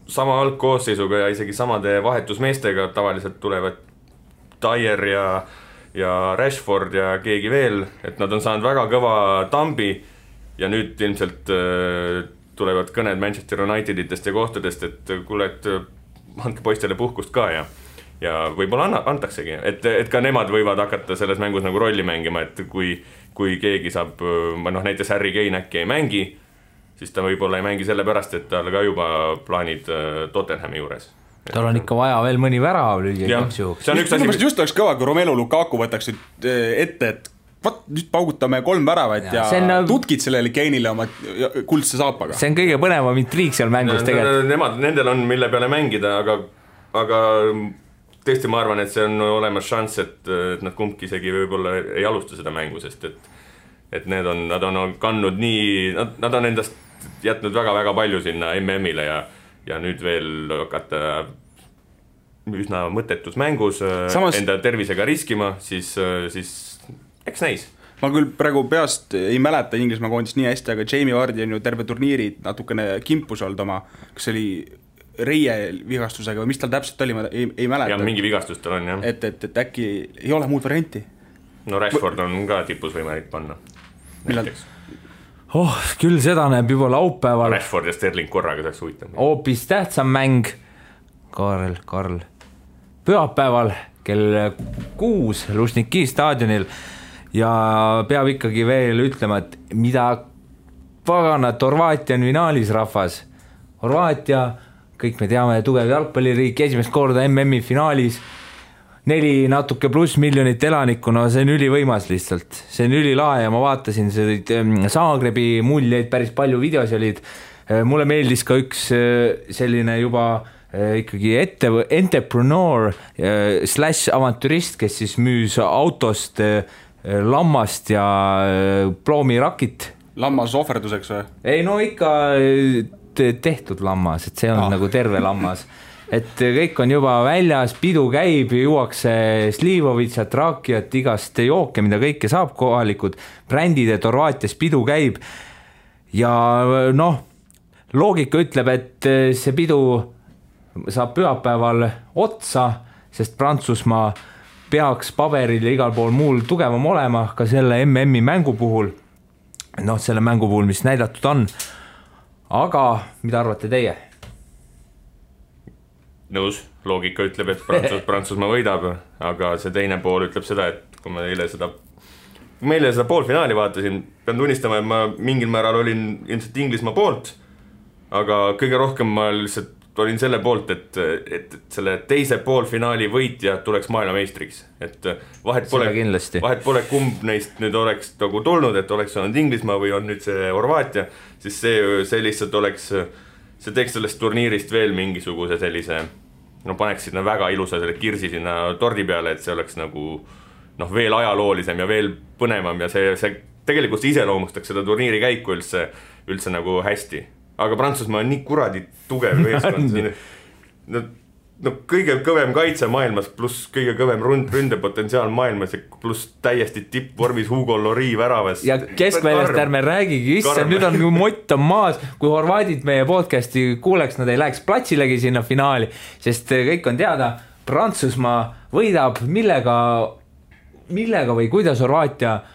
sama algkoosseisuga ja isegi samade vahetusmeestega, tavaliselt tulevad Dyer ja Rashford ja keegi veel, et nad on saanud väga kõva tambi ja nüüd ilmselt tulevad kõned Manchester Uniteditest ja kohtadest, et kuule, et andke poistele puhkust ka ja võib-olla antaksegi, et ka nemad võivad hakata selles mängus nagu rolli mängima, et kui keegi saab, näiteks Harry Kane äkki ei mängi, siis ta võib-olla ei mängi sellepärast, et tal ka juba plaanid Tottenhami juures. Tal on ikka vaja veel mõni värav lüüa igaks juhuks. Just oleks kõva, kui Romelu Lukaku võtaks ette, et nüüd paugutame 3 väravat ja tutkid sellele Kane'ile oma kuldse saapaga. See on kõige põnevam intriig seal mängus tegelikult. Nendel on mille peale mängida, aga tõesti ma arvan, et see on olemas šanss, et nad kumbki isegi võib-olla ei alusta seda mängu, sest et nad on kandnud nii, nad on endast jätnud väga-väga palju sinna MM-ile ja nüüd veel hakata üsna mõttetus mängus enda tervisega riskima, siis eks näis. Ma küll praegu peast ei mäleta Inglismaa koondist nii hästi, aga Jamie Vardy on ju terve turniiri natukene kimpus olnud oma, kas oli reie vigastusega või mis tal täpselt oli, ma ei mäleta. Ja mingi vigastus tal on, jah. Et äkki ei ole muud varianti. No Rashford on ka tipus võimalik panna. Küll seda näeb juba laupäeval. Rashford ja Sterling korraga saaks huvitav. Hoopis tähtsam mäng. Karl. Pühapäeval kell 6 Lužniki staadionil ja peab ikkagi veel ütlema, et mida paganat Horvaatia on finaalis rahvas. Horvaatia, kõik me teame, tugev jalgpalliriik, esimest korda MM-i finaalis, 4 natuke pluss miljonit elanikku, no see on ülivõimas lihtsalt. See on ülilae ja ma vaatasin Zagrebi muljeid, päris palju videos olid. Mulle meeldis ka üks selline juba ikkagi entrepreneur / avantürist, kes siis müüs autost lammast ja ploomirakit. Lammas ohverduseks või? Ei, no ikka tehtud lammas, et see on nagu terve lammas. Et kõik on juba väljas, pidu käib, juuakse Slivovitsat, Rakiat, igast jooke, mida kõike saab kohalikud brändid, et Horvaatias pidu käib. Ja loogika ütleb, et see pidu saab pühapäeval otsa, sest Prantsusmaa peaks paberil ja igal pool muul tugevam olema ka selle MM-i mängu puhul. Selle mängu puhul, mis näidatud on. Aga mida arvate teie? Nõus, loogika ütleb, et Prantsusmaa võidab, aga see teine pool ütleb seda, et kui meile seda poolfinaali vaatasin, pean tunnistama, et ma mingil määral olin ilmselt Inglismaa poolt, aga kõige rohkem ma lihtsalt olin selle poolt, et selle teise poolfinaali võitja tuleks maailmameistriks. Et vahet pole kumb neist nüüd oleks nagu tulnud, et oleks olnud Inglismaa või on nüüd see Horvaatia, siis see lihtsalt oleks, see teeks sellest turniirist veel mingisuguse sellise, paneks sinna väga ilusa selle kirsi sinna tordi peale, et see oleks nagu veel ajaloolisem ja veel põnevam ja see tegelikult iseloomustaks seda turniiri käiku üldse nagu hästi. Aga Prantsusmaa on nii kuradi tugev meeskond. Kõige kõvem kaitse maailmas, pluss kõige kõvem ründepotentsiaal maailmas, pluss täiesti tippvormis Hugo Lloris väravas. Ja keskväljast ärme räägigi, nüüd on mott on maas, kui horvaadid meie podcasti kuuleks, nad ei läheks platsilegi sinna finaali, sest kõik on teada, Prantsusmaa võidab, millega või kuidas Horvaatia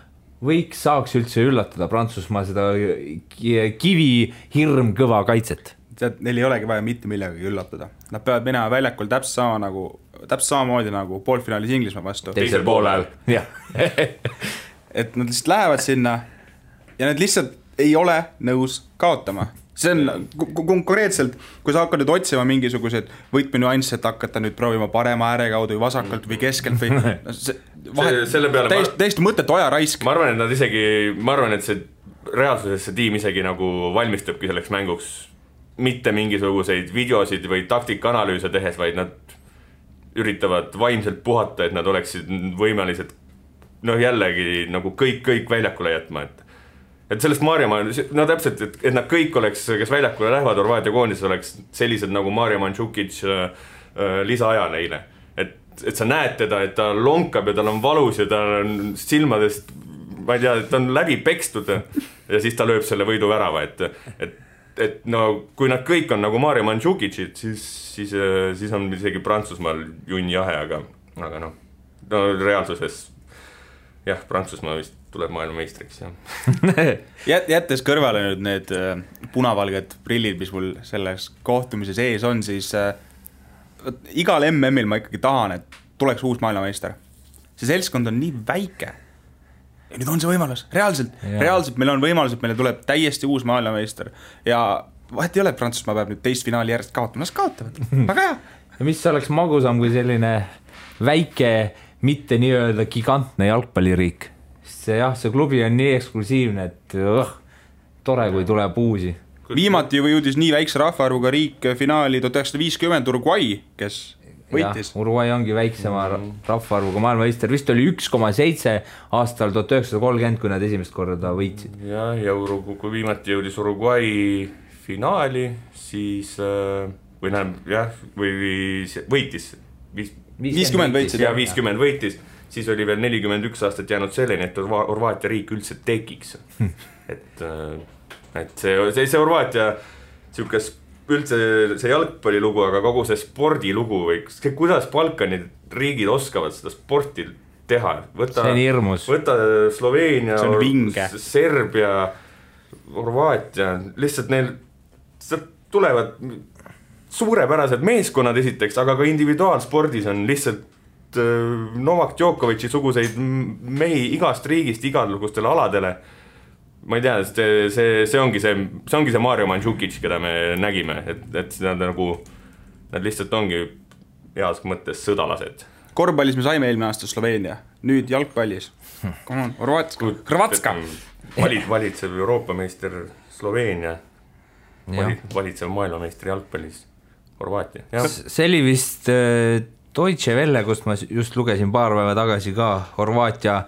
saaks üldse üllatada Prantsusmaa seda kivi hirm kõva kaitset. Neil ei olegi vaja mitte millegagi üllatada. Nad peavad minema väljakul täpselt samamoodi nagu poolfinaalis Inglismaa vastu. Teisel poolel. Et nad lihtsalt lähevad sinna ja nad lihtsalt ei ole nõus kaotama. See on konkreetselt, kui sa hakkad nüüd otsima mingisugused võitmenüansse, et hakata nüüd proovima parema ääre kaudu või vasakalt või keskelt või täiesti mõttetu aja raisk. Ma arvan, et see reaalsuses see tiim isegi nagu valmistabki selleks mänguks mitte mingisuguseid videosid või taktikanalüüse tehes, vaid nad üritavad vaimselt puhata, et nad oleksid võimelised jällegi nagu kõik väljakule jätma, et sellest Maarjamaa, täpselt, et nad kõik oleks, kes väljakule lähevad Horvaatia koondis, oleks sellised nagu Maarja Mandžukic lisaaja neile. Et et sa näed teda, et ta lonkab ja tal on valus ja tal on silmadest, ma ei tea, ta on läbi pekstud ja siis ta lööb selle võiduvärava, et no kui nad kõik on nagu Mario Mandžukicid, siis on isegi Prantsusmaal junni jahe, aga no reaalsuses jah, Prantsusmaa vist tuleb maailmameistriks, jah. Jättes kõrvale nüüd need punavalged prillid, mis mul selles kohtumises ees on, siis igal MM-il ma ikkagi tahan, et tuleks uus maailmameister. See seltskond on nii väike. Ja nüüd on see võimalus. Reaalselt meil on võimalus, et meile tuleb täiesti uus maailmameister. Ja vahet ei ole, et Prantsusmaa peab nüüd teist finaali järjest kaotama. Nad kaotavad. Väga hea. Ja mis oleks magusam kui selline väike, mitte nii-öelda gigantne jalgpalliriik. See klubi on nii eksklusiivne, et tore, kui tuleb uusi. Viimati juba jõudis nii väikse rahvaarvuga riik finaali 1950 Uruguay, kes võitis. Uruguay ongi väiksema rahvaarvuga maailmameister. Vist oli 1,7 aastal 1930, kui nad esimest korda võitsid. Ja kui viimati jõudis Uruguay finaali, siis võitis 50 võitsid. Ja 50 võitis. Siis oli veel 41 aastat jäänud selleni, et Horvaatia riik üldse tekiks. Et see Horvaatia üldse see jalgpallilugu, aga kogu see spordilugu või kuidas Balkani riigid oskavad seda sporti teha. See on hirmus. Võta Sloveenia, Serbia, Horvaatia, lihtsalt neil tulevad suurepärased meeskonnad esiteks, aga ka individuaalspordis on lihtsalt Novak Djokovic'i suguseid mehi igast riigist igalugustele aladele. Ma ei tea, see ongi see Mario Mandžukic, keda me nägime, et nad lihtsalt ongi heas mõttes sõdalased. Korvpallis me saime eelmine aasta Sloveenia, nüüd jalgpallis. Come on, Hrvatska. Valitsev Euroopa meister Sloveenia, valitsev maailmameister jalgpallis Horvaatia. See oli vist Deutsche Welle, kust ma just lugesin paar päeva tagasi ka Horvaatia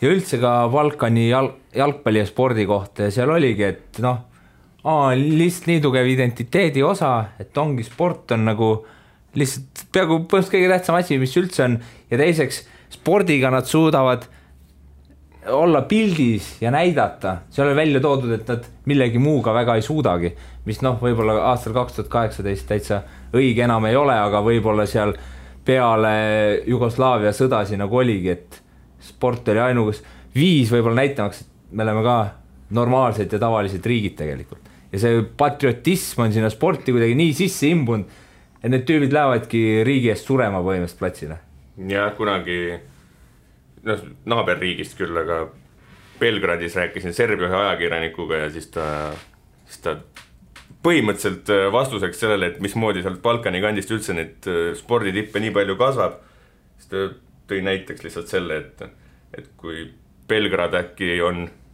ja üldse ka Balkani jalgpalli ja spordi kohta ja seal oligi, et lihtsalt nii tugev identiteedi osa, et ongi sport on nagu lihtsalt peaaegu põhimõtteliselt kõige tähtsam asi, mis üldse on ja teiseks spordiga nad suudavad olla pildis ja näidata, see oli välja toodud, et nad millegi muuga väga ei suudagi, mis võib-olla aastal 2018 täitsa õige enam ei ole, aga võib-olla seal peale Jugoslaavia sõdasi nagu oligi, et sport oli ainugas viis võib-olla näitamaks, et me oleme ka normaalsed ja tavalised riigid tegelikult. Ja see patriotism on sinna sporti kuidagi nii sisse imbunud, et need tüübid lähevadki riigi eest surema põhimõtteliselt platsile. Ja kunagi naaberriigist küll, aga Belgradis rääkisin Serbia ühe ajakirjanikuga ja siis ta põhimõtteliselt vastuseks sellele, et mismoodi sealt Balkani kandist üldse need sporditippe nii palju kasvab, siis ta tõi näiteks lihtsalt selle, et kui Belgrad äkki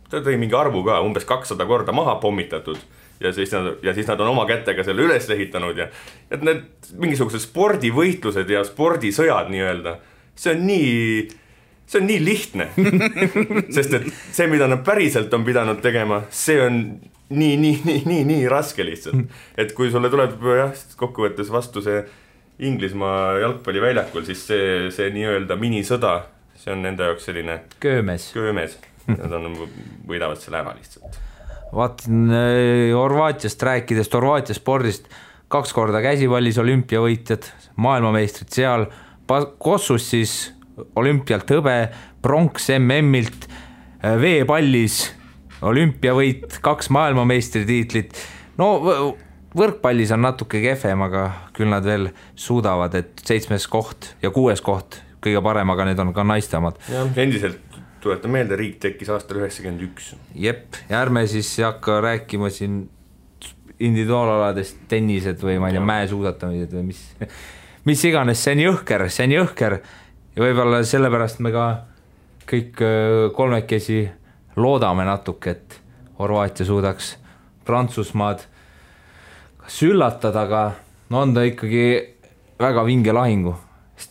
ta tõi mingi arvu ka, umbes 200 korda maha pommitatud ja siis nad on oma kätega selle üles ehitanud ja et need mingisugused spordivõitlused ja spordisõjad nii-öelda, see on nii lihtne, sest et see, mida nad päriselt on pidanud tegema, see on nii raske lihtsalt. Et kui sulle tuleb kokkuvõttes vastu see Inglismaa jalgpalliväljakul, siis see nii-öelda minisõda, see on nende jaoks selline köömes. Nad võidavad selle ära lihtsalt. Vaatan Horvaatiast rääkides, Horvaatia spordist 2 korda käsipallis olümpiavõitjad, maailmameistrid seal, Kossus siis olümpialt hõbe, pronks MM-ilt, veepallis olümpiavõit, 2 maailmameistritiitlit. Võrkpallis on natuke kehvem, aga küll nad veel suudavad, et 7. koht ja 6. koht kõige parem, aga need on ka naistemad. Ja endiselt tuletan meelde, riik tekkis aastal 91. Jep, ja ärme siis hakka rääkima siin individuaalaladest tennised või ma ei tea, mäesuusatamised või mis iganes, see on jõhker ja võib-olla sellepärast me ka kõik kolmekesi loodame natuke, et Horvaatia suudaks Prantsusmaad kas üllatada, aga on ta ikkagi väga vinge lahingu.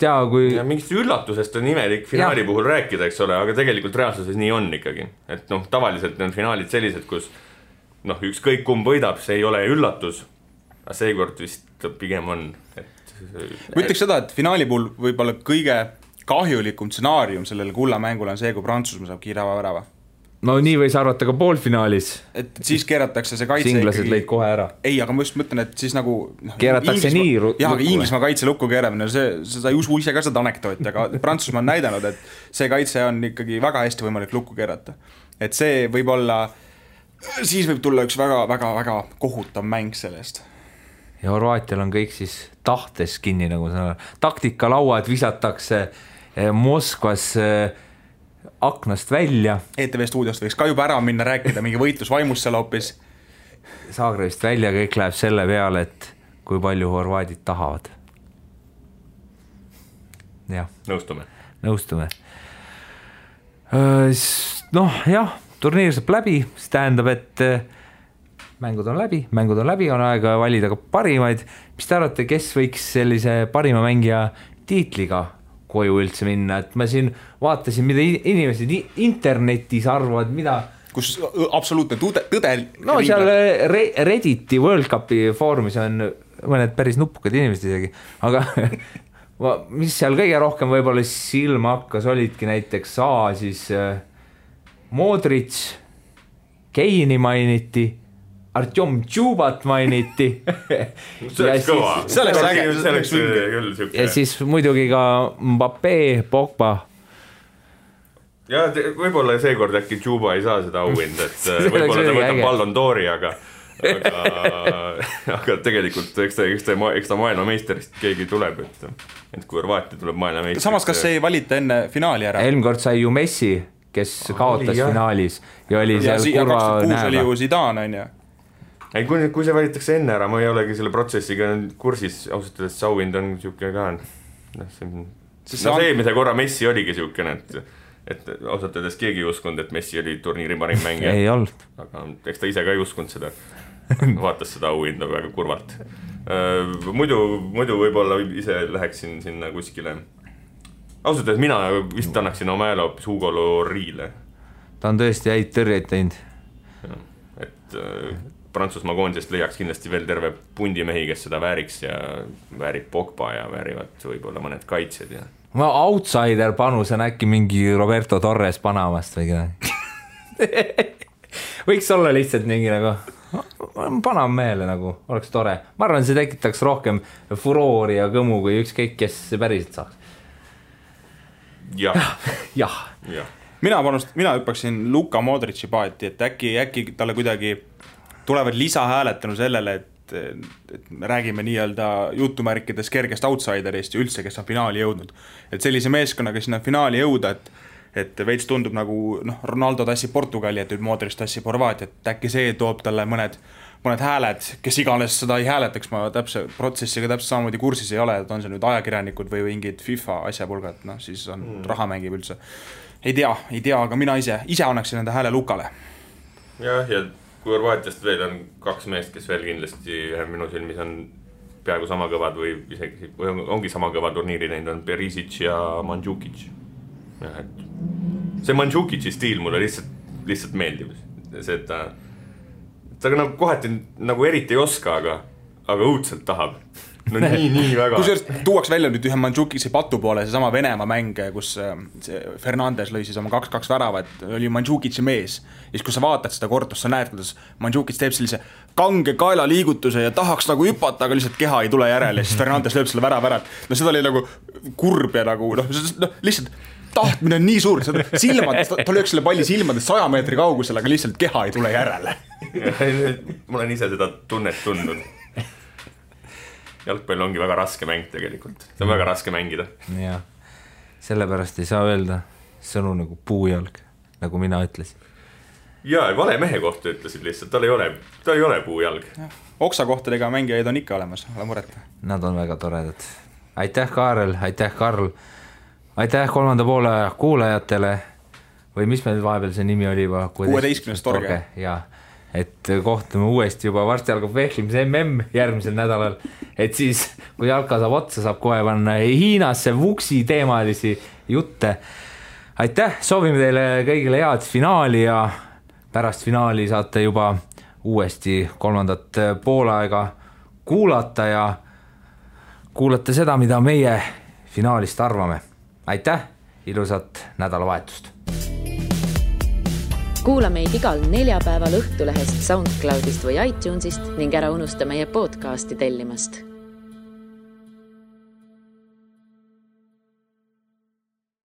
Ja mingist üllatusest on imelik finaali puhul rääkida, eks ole, aga tegelikult reaalsuses nii on ikkagi. Et tavaliselt on finaalid sellised, kus ükskõik kumb võidab, see ei ole üllatus, aga seekord vist pigem on, et ma ütleks seda, et finaali puhul võib-olla kõige kahjulikum stsenaarium sellele kullamängule on see, kui Prantsusmaa saab kiire värava. No nii võis arvata ka poolfinaalis. Et siis keeratakse see kaitse Singlased ikkagi... lõid kohe ära. Ei, aga ma just mõtlen, et siis nagu... Keeratakse nii jah, aga Inglismaa kaitse lukku keeramine, sa ei usu ise ka seda anekdooti, aga Prantsusmaa on näidanud, et see kaitse on ikkagi väga hästi võimalik lukku keerata. Et see võib olla... Siis võib tulla üks väga kohutav mäng sellest. Ja Horvaatial on kõik siis tahtes kinni, nagu seda taktikalauad visatakse Moskvas aknast välja. ETV stuudiost võiks ka juba ära minna rääkida, mingi võitlusvaimus seal hoopis. Zagrebist välja, kõik läheb selle peale, et kui palju horvaadid tahavad. Jah. Nõustume. Noh, jah, turniir saab läbi, see tähendab, et mängud on läbi, on aega valida ka parimaid. Mis te arvate, kes võiks sellise parima mängija tiitliga koju üldse minna, et ma siin vaatasin, mida inimesed internetis arvavad, mida... Kus absoluutne tõde... No seal Redditi World Cupi foorumis on mõned päris nupukad inimesed isegi, aga mis seal kõige rohkem võib-olla silma hakkas, olidki näiteks siis Modric, Keini mainiti, Artjom Tšubat mainiti. See oleks küll. Ja siis muidugi ka Mbappé, Pogba. Ja võib-olla seekord äkki Tšuba ei saa seda auhinda, et võib-olla ta võtab Ballon d'Ori, aga tegelikult eks ta maailmameisterist keegi tuleb, et kui Horvaatia tuleb maailmameisterist. Samas, kas ei valita enne finaali ära? Eelmine kord sai ju Messi, kes kaotas finaalis ja oli seal kurva 2006 oli ju Zidane, on ju. Ei, kui see valitakse enne ära, ma ei olegi selle protsessiga kursis, ausalt öeldes auhind on siuke ka. Eelmise korra Messi oligi siukene, et ausalt öeldes keegi ei uskunud, et Messi oli turniiri parim mängija. Ei olnud. Aga eks ta ise ka ei uskunud seda. Vaatas seda auhinda väga kurvalt. Muidu võib-olla ise läheksin sinna kuskile. Ausalt öeldes mina vist annaksin oma hääle hoopis Hugo Lloris'le. Ta on tõesti häid tõrjeid teinud. Et Prantsusmaa koondisest leiaks kindlasti veel terve pundimehi, kes seda vääriks ja väärib Pogba ja väärivad võib-olla mõned kaitsed. Ja. Ma outsider panus on äkki mingi Roberto Torres Panamast või keda. Võiks olla lihtsalt mingi nagu Panam meele nagu, oleks tore. Ma arvan, see tekitaks rohkem furoori ja kõmu, kui ükskõik, kes see päriselt saaks. Jah. Mina hüppaksin Luka Modrici paati, et äkki talle kuidagi tulevad lisahääletanu sellele, et me räägime nii-öelda jutumärkides kergest outsiderist ja üldse, kes on finaali jõudnud. Et sellise meeskonnaga sinna finaali jõuda, et veits tundub nagu Ronaldo tassib Portugali, et Modric tassib Horvaatiat, et äkki see toob talle mõned hääled, kes iganes seda ei hääletaks, ma täpse protsessiga täpselt samamoodi kursis ei ole, et on see nüüd ajakirjanikud või mingid FIFA asjapulgad, siis on raha mängib üldse. Ei tea, aga mina ise annaksin enda hääle Lukale. Ja kui Horvaatiast veel on 2 meest, kes veel kindlasti minu silmis on peaaegu sama kõvad või isegi ongi sama kõva turniiri teinud, on Perisic ja Mandžukic. See Mandžukici stiil mulle lihtsalt meeldib. See, et ta nagu kohati nagu eriti ei oska, aga õudselt tahab. No nii väga. Kusjuures tuuaks välja nüüd ühe Mandžukici patu poole, see sama Venemaa mäng, kus Fernandes lõi siis oma 2-2 värava, et oli Mandžukici mees. Ja siis, kui sa vaatad seda kordust, sa näed, kuidas Mandžukic teeb sellise kange kaela liigutuse ja tahaks nagu hüpata, aga lihtsalt keha ei tule järele. Ja siis Fernandes lööb selle värava ära. No seda oli nagu kurb ja nagu, lihtsalt tahtmine on nii suur. Silmad, ta lööks selle palli silmades 100 meetri kaugusel, aga lihtsalt keha ei tule järele. Ma olen ise seda tunnet tundnud. Jalgpall ongi väga raske mäng tegelikult. See on väga raske mängida. Ja, sellepärast ei saa öelda sõnu nagu puujalg, nagu mina ütlesin. Ja, vale mehe kohta ütlesid lihtsalt, ta ei ole puujalg. Oksakohtadega mängijaid on ikka olemas, ole muret. Nad on väga toredad. Aitäh, Kaarel, aitäh, Karl. Aitäh 3. poole kuulajatele. Või mis meil vahepeal see nimi oli juba? 16. torge. Jaa. Et kohtume uuesti juba varsti algab vehklimise järgmisel nädalal, et siis kui jalka saab otsa, saab kohe panna Hiinasse vuksi teemalisi jutte. Aitäh, soovime teile kõigile head finaali ja pärast finaali saate juba uuesti 3. poolaega kuulata ja kuulate seda, mida meie finaalist arvame. Aitäh, ilusat nädalavahetust! Kuula meid igal neljapäeval Õhtulehest, SoundCloudist või iTunesist ning ära unusta meie podcasti tellimast.